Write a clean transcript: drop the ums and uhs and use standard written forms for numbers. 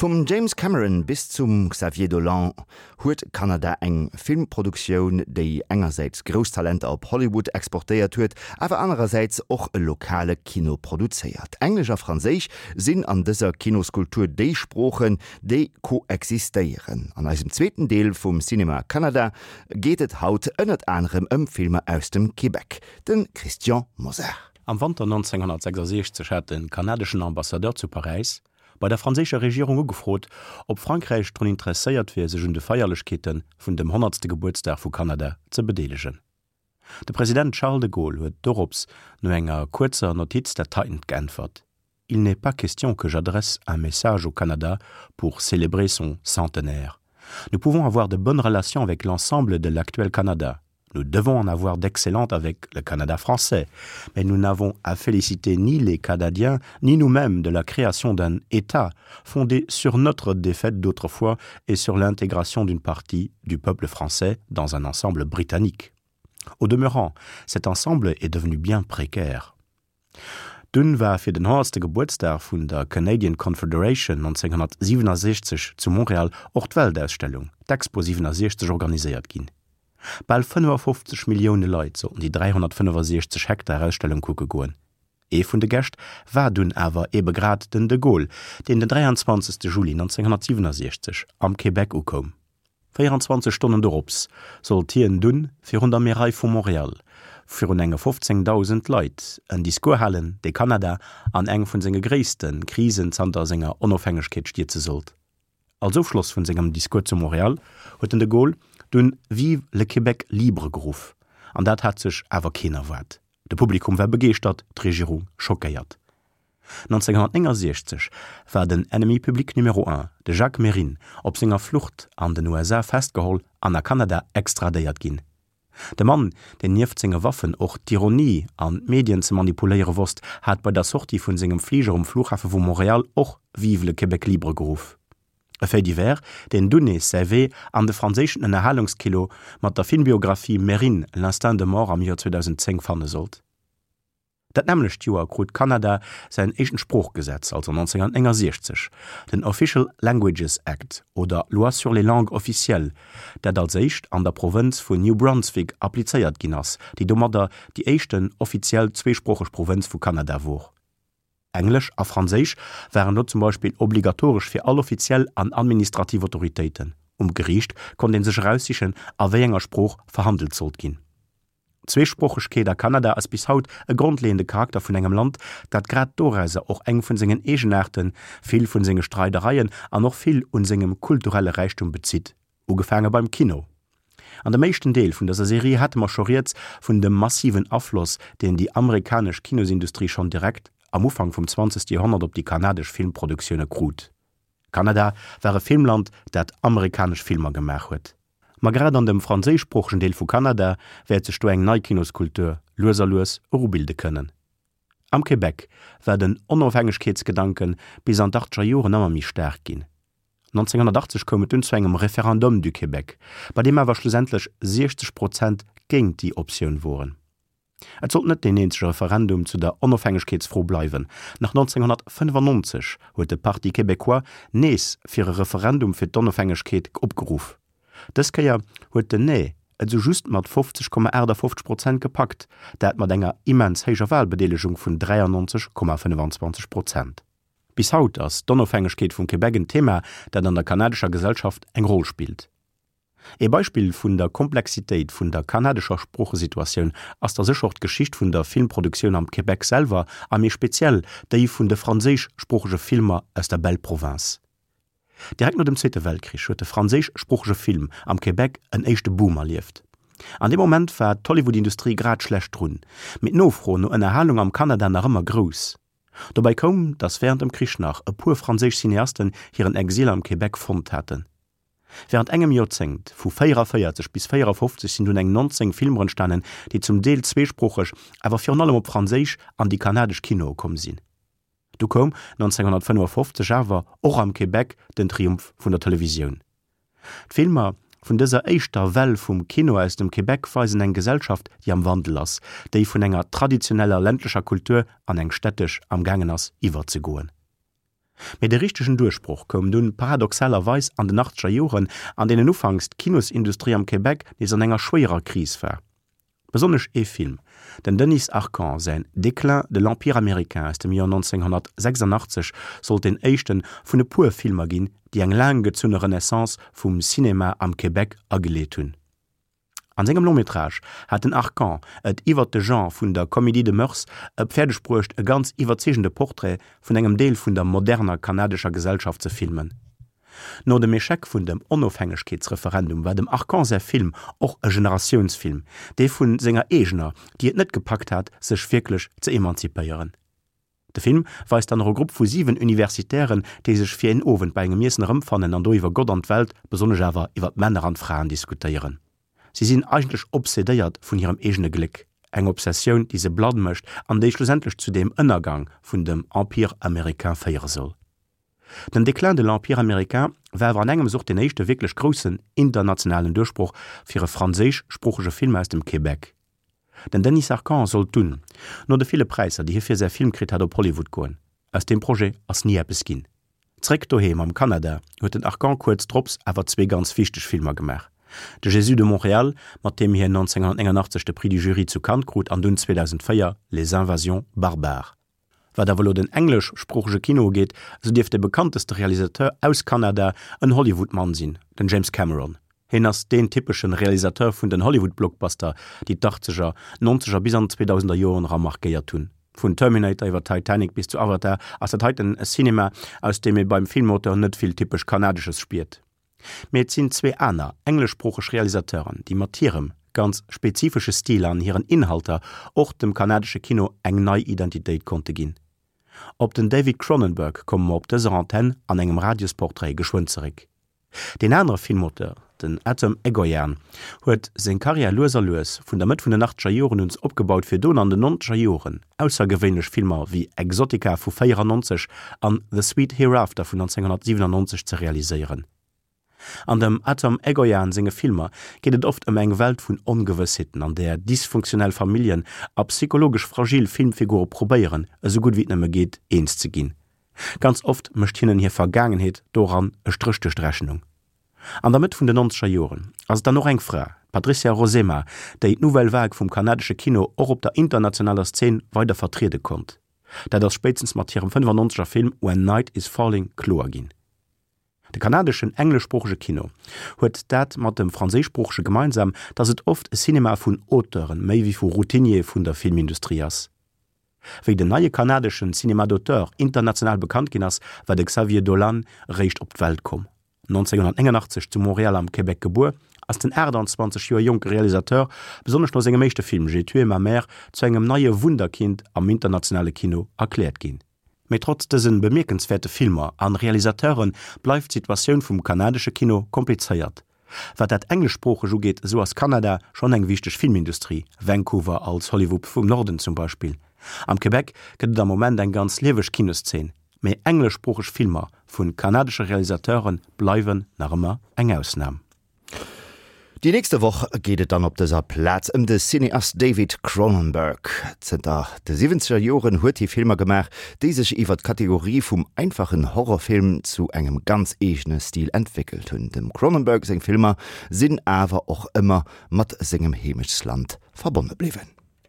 Vum James Cameron bis zum Xavier Dolan huet Kanada eng Filmproduktioun, déi engersäits grouss Talenter op Hollywood exportéiert huet, awer anerersäits och e lokale Kino produzéiert. Englesch a Franséisch sinn an dëser Kinoskultur déi Sproochen, déi koexistéieren. An eisem zweeten Deel vum Cinéma Canada geet et haut ënnert anerem ëm Filmer aus dem Québec. De Christian Mosar. Am Wanter 1966 hat de kanadeschen Ambassadeur zu Paräis bei der franséischer Regierung ugefrot, ob Frankräich drun interesséiert wier, sech un de Feierlechkeete vun dem honnertste Gebuertsdag vu Kanada ze bedeelegen. De President Charles de Gaulle huet dorops no enger kuerzer Notiz dat heitent geäntwert, Il n'est pas question que j'adresse un message au Canada pour célébrer son centenaire. Nous pouvons avoir de bonnes relations avec l'ensemble de l'actuel Canada. Nous devons en avoir d'excellentes avec le Canada français, mais nous n'avons à féliciter ni les Canadiens ni nous-mêmes de la création d'un État fondé sur notre défaite d'autrefois et sur l'intégration d'une partie du peuple français dans un ensemble britannique. Au demeurant, cet ensemble est devenu bien précaire. Dunn war fir den honnertste Gebuertsdag vun der Canadian Confederation 1967 zu Montréal och d'Weltausstellung, d'Expo 67, organiséiert ginn. Bal 55 Millioune Leit sollten déi 365 Hektar Ausstellung kucke goen. Ee vun de Gäscht war dunn awer ebe grad den de Gaulle, deen den 23. Juli 1967 am Québec ukoum. 24 Stonnen dorops sollt hien dunn virun der Märei vu Montréal virun enge 15.000 Leit en Discours halen, dee Kanada an eng vun senge gréisste Krisen zanter senger Onofhängegkeet stierze sollt. Als Ofschloss vun sengem Discours zu Montréal huet den de Gaulle dunn Vive le Québec libre geruff, an dat hat sech awer keen erwaart. De Publikum war begeeschtert, d'Regierung schockéiert. 1969 war den Ennemi public numéro un, de Jacques Mérine, op senger Flucht an den USA festgeholl an a Kanada extradéiert ginn. De Mann, deen nieft senge Waffen och d'Ironie an d'Medien ze manipuléiere wosst, hat bei der Sortie vun sengem Fliger um Flughafe vu Montréal och Vive le Québec libre geruff. E Fait divers, deen dunn nees säi Wee an de franséischen Ënnerhalungskino mat der Filmbiographie Mérine, l'instinct de mort am Joer 2010 fanne sollt. Dat nämmlecht Joer krut Kanada säin éischten Sproochgesetz, also 1969, den Official Languages Act oder Loi sur les langues officielles, dat als éischt an der Provënz vun New Brunswick applizéiert ginn ass, déi domadder déi éischten offiziell zweesproocheg Provënz vu Kanada wor. Englesch a Franséisch waren do zum Beispill obligatoresch fir all offiziell an administrativ Autoritéiten. Um Geriicht konnt ee sech eraussichen, a wéi enger Sprooch verhandelt sollt ginn. D'Zweesproochegkeet a Kanada ass bis haut e grondleeënde Charakter vun engem Land, dat grad dorauser och eng vun sengen Eegenaarten, vill vun senge Streidereien an och vill un sengem kulturelle Räichtum bezitt, ugefaange beim Kino. An dem éischten Deel vun dëser Serie hate mer scho rieds vun dem massiven Afloss, deen déi amerikanesch Kinosindustrie schonn direkt am Ufank vum zwanzegste Joerhonnert op déi kanadesch Filmproduktioune krut. Kanada war e Filmland, dat amerikanesch Filmer gemaach huet. Ma grad an dem franséischsproochegen Deel vu Kanada wäert sech do eng nei Kinoskultur lues a lues erubilde kënnen. Am Québec war den Onofhängegkeetsgedanke bis an d'Achtzeger Joren ëmmer méi staark ginn. 1980 koum et dunn zu engem Référendum du Québec, bei deem awer schlussendlech 60 Prozent géint déi Optioun woren. Et sollt net deen eenzege Referendum zu der Onofhängegkeetsfro bleiwen. Nach 1995 huet de Parti Québécois nees fir e Referendum fir d'Onofhängegkeet opgeruff. Dës Kéier huet den Nee et sou just mat 50,58 Prozent gepackt, dat mat enger immens héijer Walbedeelegung vun 93,25 Prozent. Bis haut ass d'Onofhängegkeet vum Québec en Thema, dat an der kanadescher Gesellschaft eng Roll spillt. Ee Beispill vun der Komplexitéit vun der kanadescher Sproochesituatioun ass da sécher och d'Geschicht vun der Filmproduktioun am Québec selwer a méi speziell déi vun de franséischsproochege Filmer aus der Belle Province. Direkt no dem Zweete Weltkrich huet de franséischsproochege Film am Québec en éischte Boom erlieft. An deem Moment war d'Hollywood-Industrie grad schlecht drun, mee d'Nofro no Ënnerhalung am Kanada nach ëmmer grouss. Dobäi koum, datt wärend dem Krich nach e puer franséisch Cineasten hiren Exil am Québec fonnt haten. Wärend engem Joerzéngt, vu 44 bis 54, sinn dunn eng 19 Filmer entstanen, déi zum Deel zweesproocheg, awer virun allem op Franséisch an déi kanadesch Kinoe komm sinn. Du koum 1955 awer och am Québec den Triumph vun der Televisioun. D'Filmer vun dëser éischter Well vum Kino aus dem Québec weisen eng Gesellschaft, déi am Wandel ass, déi vun enger traditioneller ländlecher Kultur an eng städtesch am gaangen ass iwwerzegoen. Mee de richtegen Duerchbroch koum dunn paradoxalerweis an den achtzeger Joren, an deenen ufanks d'Kinosindustrie am Québec nees an enger schwéierer Kris war. Besonnesch ee Film, den Denis Arcand säin Déclin de l'empire américain aus dem Joer 1986, sollt deen éischte vun e puer Filmer ginn, déi eng laang gezunne Renaissance vum Cinéma am Québec ageleet hunn. An sengem Long-métrage hat den Arcand et iwwert de Genre vun der Comédie de mœurs e fäerdeg bruecht e ganz iwwerzeegende Portrait vun engem Deel vun der moderner kanadescher Gesellschaft ze filmen. No dem Echec vun dem Onofhängegkeetsreferendum war dem Arcand säi Film och e Generatiounsfilm, dee vun senger eegener, déi et net gepackt hat, sech wierklech ze emanzipéieren. De Film weist dann och e Grupp vu 7 Universitären, déi sech fir een Owend bei engem Iessen erëmfannen an do iwwer Gott an d'Welt, besonnesch awer iwwer d'Männer an d'Fraen diskutéieren. Si sinn eigentlech obsedéiert vun hirem eegene Gléck, eng Obsessioun, déi se blann mécht an déi schlussendlech zu dem Ënnergang vun dem Empire américain féiere soll. Den Déclin de l'Empire américain war awer an engems och den éischte wierklech groussen internationalen Duerchbroch fir e franséischsproochege Film aus dem Québec. Den Denis Arcand sollt dunn, no de ville Präisser, déi hie fir säi Film kritt hat, op Hollywood goen. Aus deem Projet ass ni eppes ginn. Zréck doheem am Kanada huet den Arcand kuerz drops awer zwee ganz wichteg Filmer gemaach, De Jésus de Montréal, mat deem hien 1989 de Prix du Jury zu Cannes krut, an dunn 2004 Les Invasions barbares. Wat awer elo den engleschsproochege Kino ugeet, esou dierft de bekannteste Realisateur aus Kanada en Hollywood-Mann sinn, den James Cameron. Hien ass deen typeschen Realisateur vun den Hollywood-Blockbuster, déi d'Achtzeger, Nonzeger bis an d'Zweedausender Joren era markéiert hunn. Vun Terminator iwwer Titanic bis zu Avatar ass dat heiten e Cinema, aus deem ee beim Filmauteur net vill typesch Kanadesches spiert. Mee et sinn zwee aner engleschsproocheg Realisateuren, déi mat hirem ganz spezifesche Stil an hiren Inhalter och dem kanadesche Kino eng nei Identitéit konnte ginn. Op den David Cronenberg komme mer op dëser Antenn an engem Radiosportrait geschwënn zeréck. Deen anere Filmauteur, den Atom Egoyan, huet seng Karriär lues a lues vun der Mëtt vun den achtzeger Joren un opgebaut, fir dono an den nonzeger Joren aussergewéinlech Filmer wéi Exotica vu 94 an The Sweet Hereafter vun 1997 ze realiséieren. An dem Atom Egoyan senge Filmer geet et oft ëm eng Welt vun Ongewëssheeten, an där dysfunktionell Familljen a psychologesch fragil Filmfigure probéieren, esou gutt wéi et nëmme geet, eens ze ginn. Ganz oft mécht hinnen hir Vergaangenheet doran e Stréch duerch d'Rechnung. An der Mëtt vun den nonzeger Joren ass et dann och eng Fra, d'Patricia Rozema, déi d'Nouvelle Vague vum kanadesche Kino och op der internationaler Szen weider vertriede konnt. Dat ass spéitstens mat hirem 95er Film When Night Is Falling kloer ginn. De kanadeschen engleschsproochege Kino huet dat mat dem franséischsproochege gemeinsam, datt et oft e Cinema vun Auteuren méi wéi vu Routiniere vun der Filmindustrie ass. Wéi den neie kanadeschen Cinéma d'auteur international bekannt ginn ass, war de Xavier Dolan eréischt op d'Welt komm. 1989 zu Montréal am Québec gebuer, ass den 28 Joer jonke Realisateur besonnesch no sengem éischte Film J'ai tué ma mère zu engem neie Wunderkind am internationale Kino erkläert ginn. Mee trotz dëse bemierkenswäerte Filmer an Realisateure bleift d'Situatioun vum kanadesche Kino komplizéiert. Wat dat Engleschsproocheg ugeet, esou ass Kanada schonn eng wichteg Filmindustrie, Vancouver als Hollywood vum Norden zum Beispill. Am Québec gëtt et am Moment eng ganz lieweg Kinoszeen, mee engleschsproocheg Filmer vu kanadesche Realisateure bleiwen nach ëmmer eng Ausnam. Déi nächste Woch geet et dann op dëser Plaz ëm de Cineast David Cronenberg. Zënter de siwwenzeger Joren huet hie Filmer gemaach, déi sech iwwer d'Kategorie vum einfachen Horrorfilm zu engem ganz eegene Stil entwéckelt hunn. Dem Cronenberg seng Filmer sinn awer och ëmmer mat sengem Heemechtsland verbonne bliwwen.